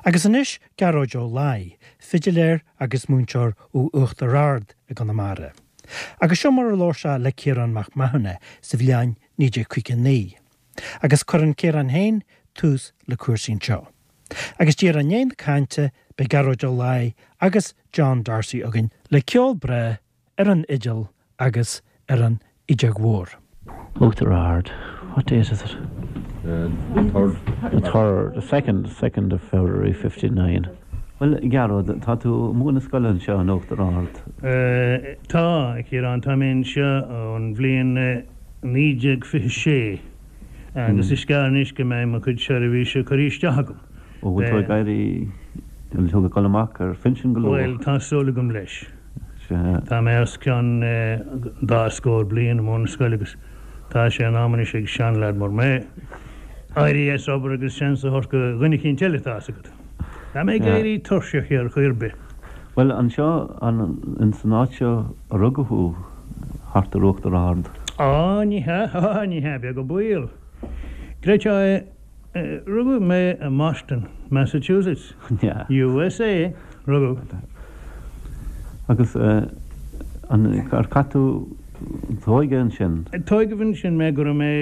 Agus anois Gearóid Ó Laoi, fidiléir agus múinteoir ó Uachtar Ard i gConamara. Agus seo mar a labhair sé le Ciarán Mac Mathúna sa bhliain 1959. Agus cuireann Ciarán féin tús le cúrsaí anseo. Agus díreach i ndiaidh na cainte beidh Gearóid Ó Laoi agus John D'Arcy againn le ceol breá ar an fhidil agus ar an fhideog mhór. Uachtar Ard, what date is it? The third. The third, the second, second of February 59. Bhuel, a Ghearóid, tá tú ag múineadh scoile anseo in Uachtar Ard. Tá, a Chiaráin, tá mé anseo ón bhliain 1926 agus is gearr anois go mbeidh mo chuid seirbhíse curtha isteach agam. Ó, bhfuil tú ag éirí, bhfuil tú ag dul amach ar phinsean go luath? Bhuel, tá súil agam leis. Sea. Tá mé os cionn dá scór bliain i mbun na scoile agus tá sé in am anois ag seanleaid mar mé éirí as obair agus seans a thabhairt go dhuine eicínt eile, tá fhios agat. Tá mé ag éirí tuirseach ar chaoi ar bith. Bhuel, anseo, an san áit seo a rugadh thú, thart ar Uachtar Ard? Á, ní hea, á, ní hea, beag an baol. Creidfeá é, Rugadh mé i mBoston, Massachusetts, USA. Rugadh. Agus an, ar chaith tú d'óige ansin? Tóigeadh ansin mé go raibh mé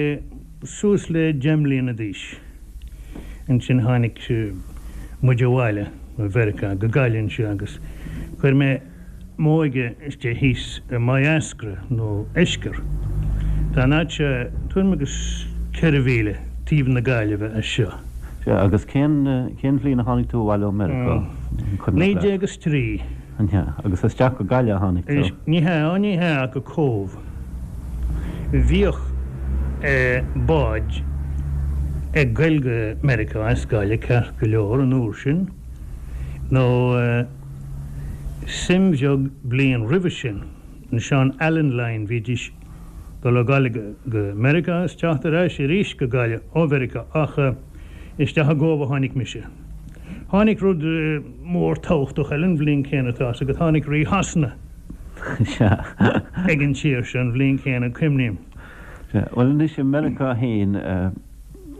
suas le deich mbliana d'aois. Ansin tháinig muid abhaile ó Mheiriceá go Gaillimh anseo agus chuir mé m'óige istigh thíos i Maigh Eascra, nó Eiscir. Tá an áit seo tuairim agus 4 mhíle taobh na Gaillimhe as seo. Sea, agus cén, cén bhliain a tháinig tú abhaile ó Meiriceá, an cuimhneach leat? 1903. An ea? Agus isteach go Gaillimh a tháinig tú? Ní hea, ó ní hea, ach go Cóbh. Bhíodh báid ag goil go Meiriceá as Gaillimh ceart go leor an uair sin, nó suim bheag bliain roimhe sin, an Sean Allen Line, bhídís dul ó Gaillimh go Meiriceá is teacht ar ais arís go Gaillimh ó Mheiriceá ach isteach i gCóbh a tháinig mise. Tháinig rud mór tabhachtach eile an bhliain chéanna tá fhios agat, tháinig Rí Shasana ag an tír seo an bhliain chéanna, cuimhním. Sea, bhuel anois i Meiriceá féin,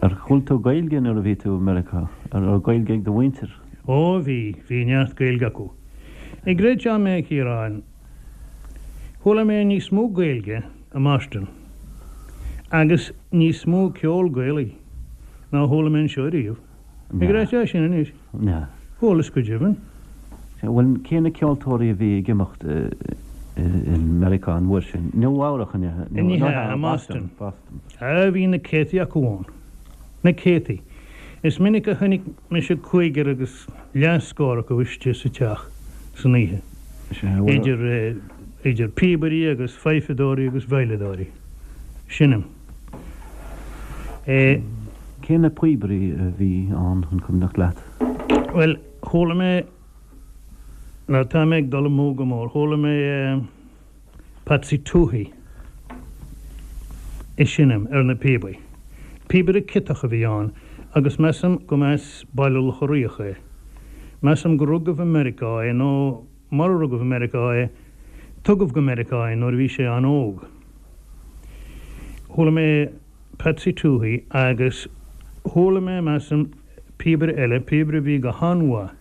ar chuala tú Gaeilge nuair a bhí tú i Meiriceá? An raibh Gaeilge ag do mhuintir? Ó bhí, bhí neart Gaeilge acu. An gcreidfeá mé a Chiaráin, chuala mé níos mó Gaeilge i mBoston agus níos mó ceol Gaelaí ná chuala mé anseo ariamh. An gcreidfeá sin anois? Chualas go deimhin. Sea, bhuel cé na ceoltóirí a bhí ag imeacht i Meiriceá an uair sin? Nua Eabhrach an ea? Ní hea, i mBoston. Á bhí na céadtaí acu ann. Na céadtaí. Is minic a chonaic mise cúigear agus leathscór acu istigh sa teach san oíche, idir, idir píobairí agus fidhfeadóirí agus veidhleadóirí. Seinm. É. Cé na píobairí a bhí ann, an cuimhneach leat? Bhuel, chuala mé, nó tá mé ag dul amú go mór, chuala mé Patsy Touhey ag seinm ar na píobaí. Píobaire ciotach a bhí ann agus measaim go mba as Baile Locha Riach é. Measaim go rugadh i Meiriceá é nó mura rugadh i Meiriceá é, tugadh go Meiriceá é nuair a bhí sé an-óg. Chuala mé Patsy Touhey agus chuala mé, measaim, píobaire eile, píobaire a bhí go han-mhaith,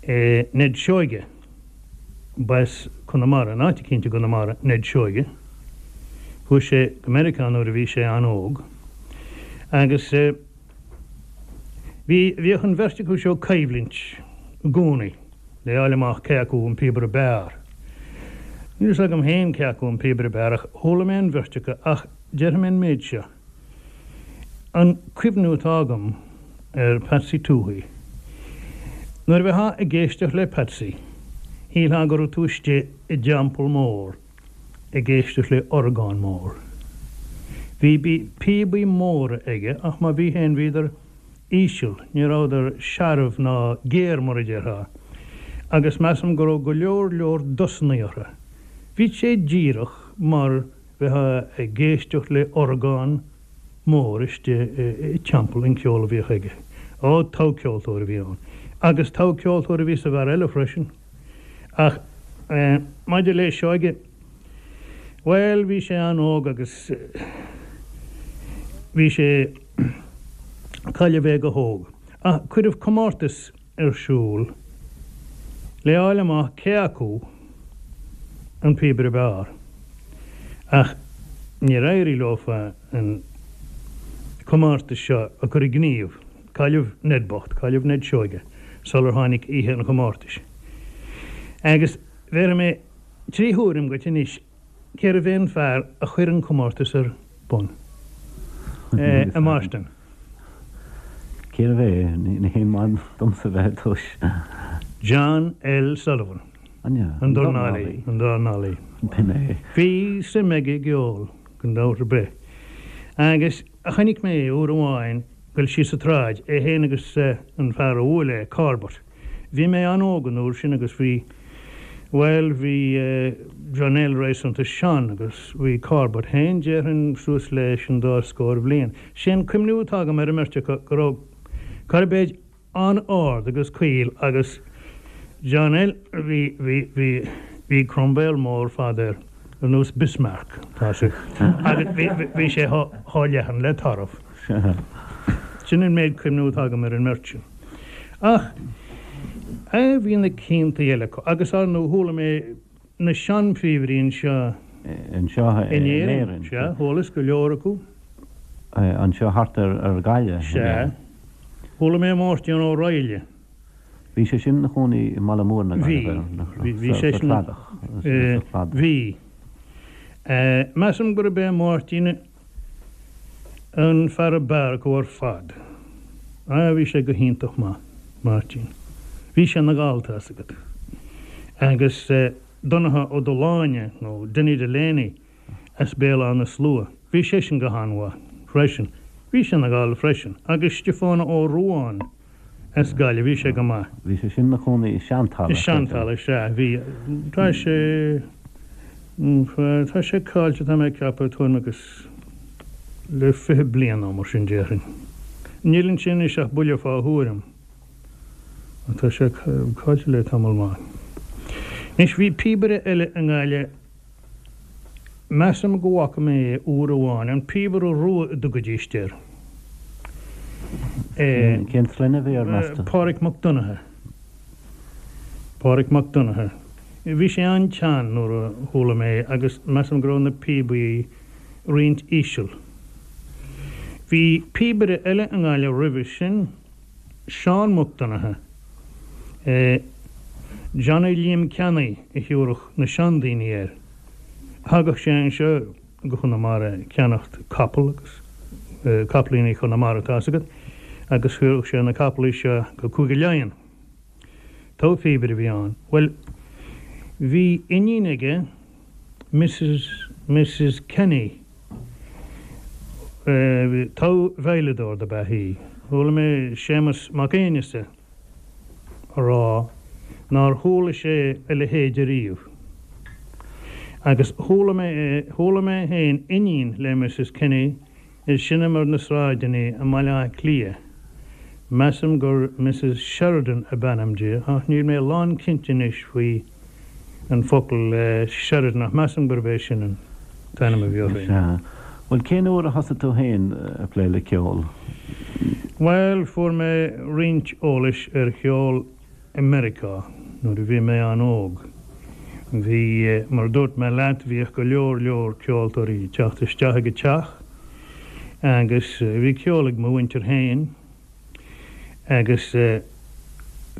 Ned Seoige. B'as Conamara, in áit eicínt i gConamara, Ned Seoige. Chuaigh sé go Meiriceá nuair a bhí sé an-óg agus bhí, bhíodh an bheirt acu seo ag coimhlint i gcónaí le fháil amach cé acu an píobaire b'fhearr. Níl fhios agam féin cé acu an píobaire b'fhearr ach chuala mé an bheirt acu ach déarfaidh mé an méid seo, An cuimhniú atá agam ar Patsy Touhey, nuair a bheifeá ag éisteacht le Patsy, shílfeá go raibh tú istigh i dteampall mór ag éisteacht le orgán mór. Bhí píobaí móra aige ach má bhí féin bhíodar íseal, ní rabhadar searbh ná géar mar a déarfá, agus measaim go raibh go leor leor dosannaí orthu. Bhí sé díreach mar bheifeá ag éisteacht le orgán mór istigh i dteampall an ceol a bhíodh aige. Ó, togha-cheoltóir a bhí ann. Agus togha-cheoltóir a bhí sa bhfear eile freisin. Ach maidir le Seoige, bhuel, bhí sé an-óg agus bhí sé, cailleadh é go hóg. Ach cuireadh comórtas ar siúl le fháil amach cé acu an píobaire b'fhearr. Ach níor éirigh leofa an comórtas seo a chur i ngníomh. Cailleadh Ned bocht, cailleadh Ned Seoige sular tháinig oíche an chomórtais. Agus bhéarfaidh mé 3 thuairim dhuit anois cérbh é an fear a chuir an comórtas ar bun? A Mháirtín. Cérbh é? Ní haon mhaith domsa bheith ag tomhas. John L. Sullivan. An ea? An dornálaí. An dornálaí. B'in é. Bhí suim aige i gceol, gan dabht ar bith. Agus chonaic mé é uair amháin ag goil síos an tsráid, é féin agus an fear a bhuail é, Corbett. Bhí mé an-óg an uair sin agus bhí, bhuel, bhí John L. réasúnta sean agus bhí Corbett féin, déarfainn, suas leis an dá scór bhliain. Sé an cuimhniú atá agam ar an mbeirt acu go raibh Corbett an-ard agus caol agus John L. bhí, bhí, bhí, bhí crombéal mór fada air ar nós Bismarck, tá sé, agus bhí, bhí sé chomh leathan le tarbh. Sin an méid cuimhniú atá agam ar an mbeirt sin. Ach eh bhí na cianta eile acu agus ar ndóigh chuala mé na seanphíobairí anseo Anseo in Éirinn. Sea, chualas go leor acu. Anseo thart ar Ghaillimh. Sea. Chuala mé Máirtín Ó Raghallaigh. Bhí sé sin ina chónaí i mBaile Móir na Gaillimhe, nach raibh? Bhí, bhí sé sin. Sa Chladach. Bhí. Measaim gurb é Máirtín an fear ab fhearr acu ar fad. Ah, bhí sé go hiontach maith, Máirtín. Bhí sé ina Ghall, tá's agat. Agus Donnchadh Ó Dubhshláine, nó Dinny Delaney, as Béal Átha na Slua, bhí seisean go han-mhaith freisin. Bhí sé ina Ghall freisin. Agus Stiofán Ó Ruadháin as Gaillimh, bhí sé go maith. Bhí sé sin ina chónaí i Seantalamh. I Seantalamh, sea, bhí. Tá sé, tá sé caillte, tá mé ag ceapadh, tuairim agus le 20 bliain nó mar sin déarfainn. Níl ansin anois ach buille fá thuairim. Ach tá sé caillte le tamall maith. Anois, bhí píobaire eile i nGaillimh, Measaim go bhfaca mé é uair amháin, an Píobaire Rua a dtugaidíst air. Cén sloinne a bhí air, meas tú? Páraic Mac Donnchadha. Páraic Mac Donnchadha. Bhí sé an-tsean nuair a chuala mé é agus measaim go raibh na píobaí roinnt íseal. Bhí píobaire eile i nGaillimh roimhe sin. Seán Mac Donnchadha, Johnny Liam Ceannaí a thiúrfadh na seandaoine air. Thagadh sé anseo go Conamara ag ceannacht capall agus capaillíní Chonamara tá's agat agus thiúrfadh sé na capallaí seo go Cúige Laighean. Togha phíobaire a bhí ann. Bhuel, bhí iníon aige, Mrs. Mrs. Kenny, Togha veidhleadóir dob ea í. Chuala mé Séamus Mac Aonghusa a rá nár chuala sé a leithéid ariamh. Agus chuala mé chuala mé féin iníon le Mrs. Kenny ag seinm ar na sráideanna i mBaile Átha Cliath. Measaim gur Mrs. Sheridan ab ainm di, ach níl mé lánchinnte anois faoi an focal Sheridan, ach measaim gurb é sin an t-ainm a bhí uirthi. Sea. Bhuel, cén uair a thosaigh tú féin ag plé le ceol? Bhuel, fuair mé roinnt eolais ar cheol i Meiriceá nuair a bhí mé an-óg. Bhí, mar a dúirt mé leat, bhíodh go leor leor ceoltóirí ag teacht isteach ag an teach agus bhí ceol ag mo mhuintir féin agus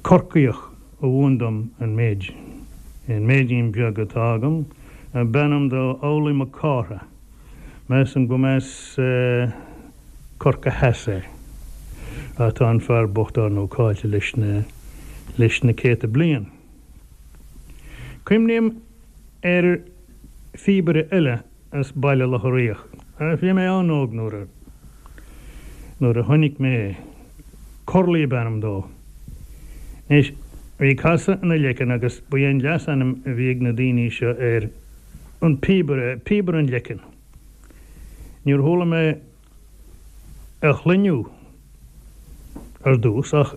Corcaíoch a mhúin dom an méid, an méidín beag atá agam, ab ainm dó Amhlaoibh Mac Cártha. Measaim go mb'as Corcaigh Theas é. Ach tá an fear bocht ár ndóigh caillte leis na, leis na céadta bliain. Cuimhním ar phíobaire eile as Baile Locha Riach. Bhí mé an-óg nuair a, nuair a chonaic mé é. Curley ab ainm dó. Anois, bhí casadh ina leiceann agus ba é an leasainm a bhí ag na daoine seo air an píobaire, píobaire an leicinn. Níor chuala mé a shloinneadh ar dtús ach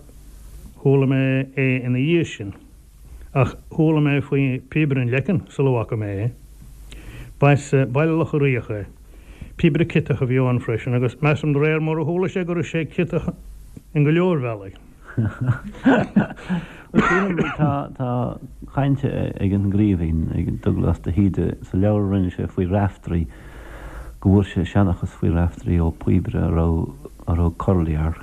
chuala mé é ina dhiaidh sin. Ach chuala mé faoi Phíobaire an Leicinn sula bhfaca mé é. B'as Baile Locha Riach é. Píobaire ciotach a bhí ann freisin agus measaim de réir mar a chuala sé go raibh sé ciotach. In go leor bealaí. Bhuel, sílim, tá, tá caint ag an gCraoibhín, ag Dubhghlas de hÍde, sa leabhar a rinne sé faoi Raiftearaí, go bhfuair sé seanchas faoi Raiftearaí ó phíobaire a raibh, a raibh Curley air,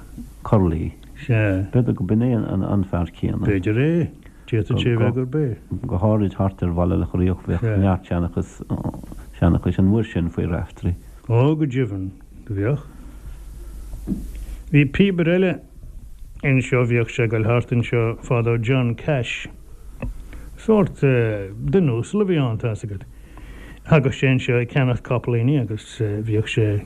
Curley. Sea. B'fhéidir go b'in é an, an fear céanna. B'fhéidir é. D'fhéadfadh sé a bheith gurb é. Go háirid thart ar Bhaile Locha Riach bheadh neart seanchas, seanchais an uair sin faoi Raiftearaí. Ó, go deimhin, do bheadh. Bhí píobaire eile anseo, bhíodh sé ag goil thart anseo fadó, John Cash. Sórt duine uasal a bhí ann, tá's agat. Thagadh sé anseo ag ceannacht capaillíní agus bhíodh sé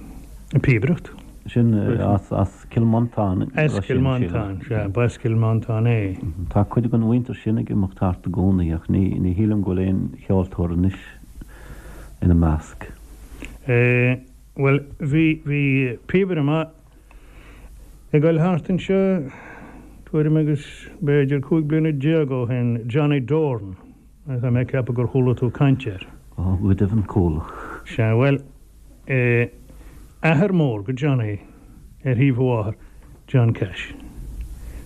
ag píobaireacht. Sin as Cill Mhantáin. As Cill Mhantáin, sea, b'as Cill Mhantáin é. Tá cuid den mhuintir sin ag imeacht thart i gcónaí ach ní shílim go bhfuil aon cheoltóir anois ina measc. Bhuel, bhí, bhí píobaire maith ag goil thart anseo tuairim agus b'fhéidir 15 bliana ó shin, Johnny Doran, tá mé ag ceapadh gur chuala tú caint air. Ó, go deimhin chuala. Sea, bhuel, Athair mór go Johnny ar thaobh a mháthar, John Cash.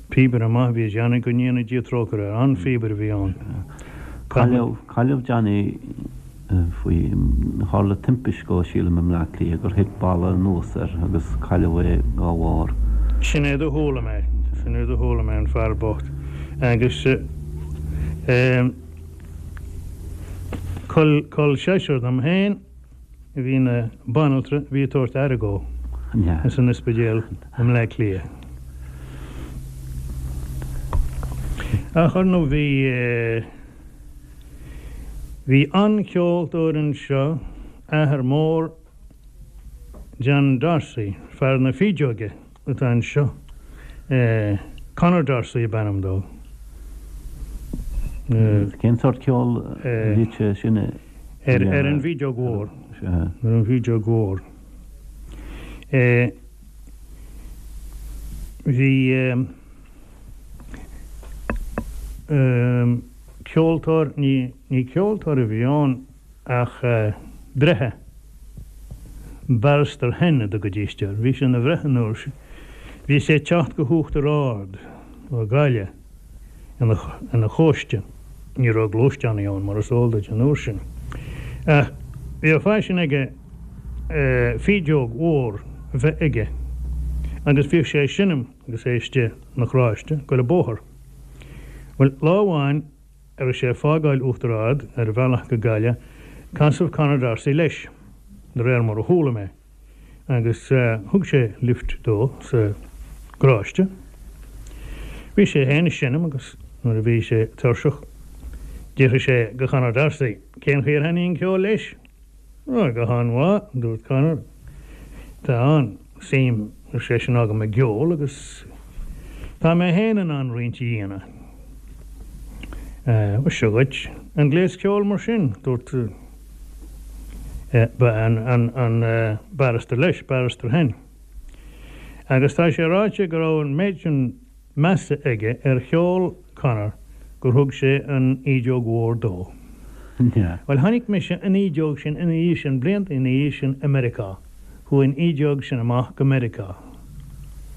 Píobaire maith a bhí i Johnny, go ndéana Dia trócaire air. An-phíobaire a bhí ann. Cailleadh, cailleadh Johnny faoi, tharla timpist dhó sílim i mBleá Cliath gur thit balla anuas air agus cailleadh é dá bharr. Sin é do chuala mé, sin é do chuala mé, an fear bocht. Agus col, col seisear dom féin. a bhí ina banaltra a bhí ag tabhairt aire dhó ins an ospidéal i mBleá Cliath. Ach ar ndóigh bhí bhí an-cheoltóir anseo, athair mór John D'Arcy, fear na fídeoige. atá anseo. Conor D'Arcy ab ainm dó. Cén sórt ceoil a bhíodh sé sin a dhéanamh? Ar an bhfídeog mhór. Ar an bhfídeog mhór. Bhí ceoltóir, ní ceoltóir a bhí ann ach breitheamh. Barrister Henn a dtugaidís air. Bhí sé ina bhreitheamh an uair sin. Bhí sé ag teacht go hUachtar Ard ó Ghaillimh ina chóiste. Ní raibh gluaisteánaí ann mar is eol duit an uair sin. Ach bhí a phaisean aige fídeog mhór a bheith aige agus bhíodh sé ag seinm agus é istigh ina charráiste ag goil an bóthar. Bhuel, lá amháin a raibh sé ag fágáil Uachtar Ard ar a bhealach go Gaillimh, casadh Conor D'Arcy leis, de réir mar a chuala mé, agus thug sé lift dó sa gcarráiste. Bhí sé féin ag seinm agus nuair a bhí sé tuirseach, d'fhiafraigh sé de Chonor D'Arcy cén chaoi ar thaitnigh an ceol leis. Ó, go han-mhaith, a dúirt Conor. Tá an-suim, ar seisean, agam i gceol agus tá mé féin in ann roinnt a dhéanamh. Bhuel, seo dhuit an gléas ceoil mar sin, dúirt an barrister leis, Barrister Henn. Agus tá sé ráite go raibh an méid sin measa aige ar cheol Conor gur thug sé an fhídeog mhór dó. Bhuel, chonaic mise an fhídeog sin ina dhiaidh sin, blianta ina dhiaidh sin i Meiriceá. Chuaigh an fhídeog sin amach go Meiriceá.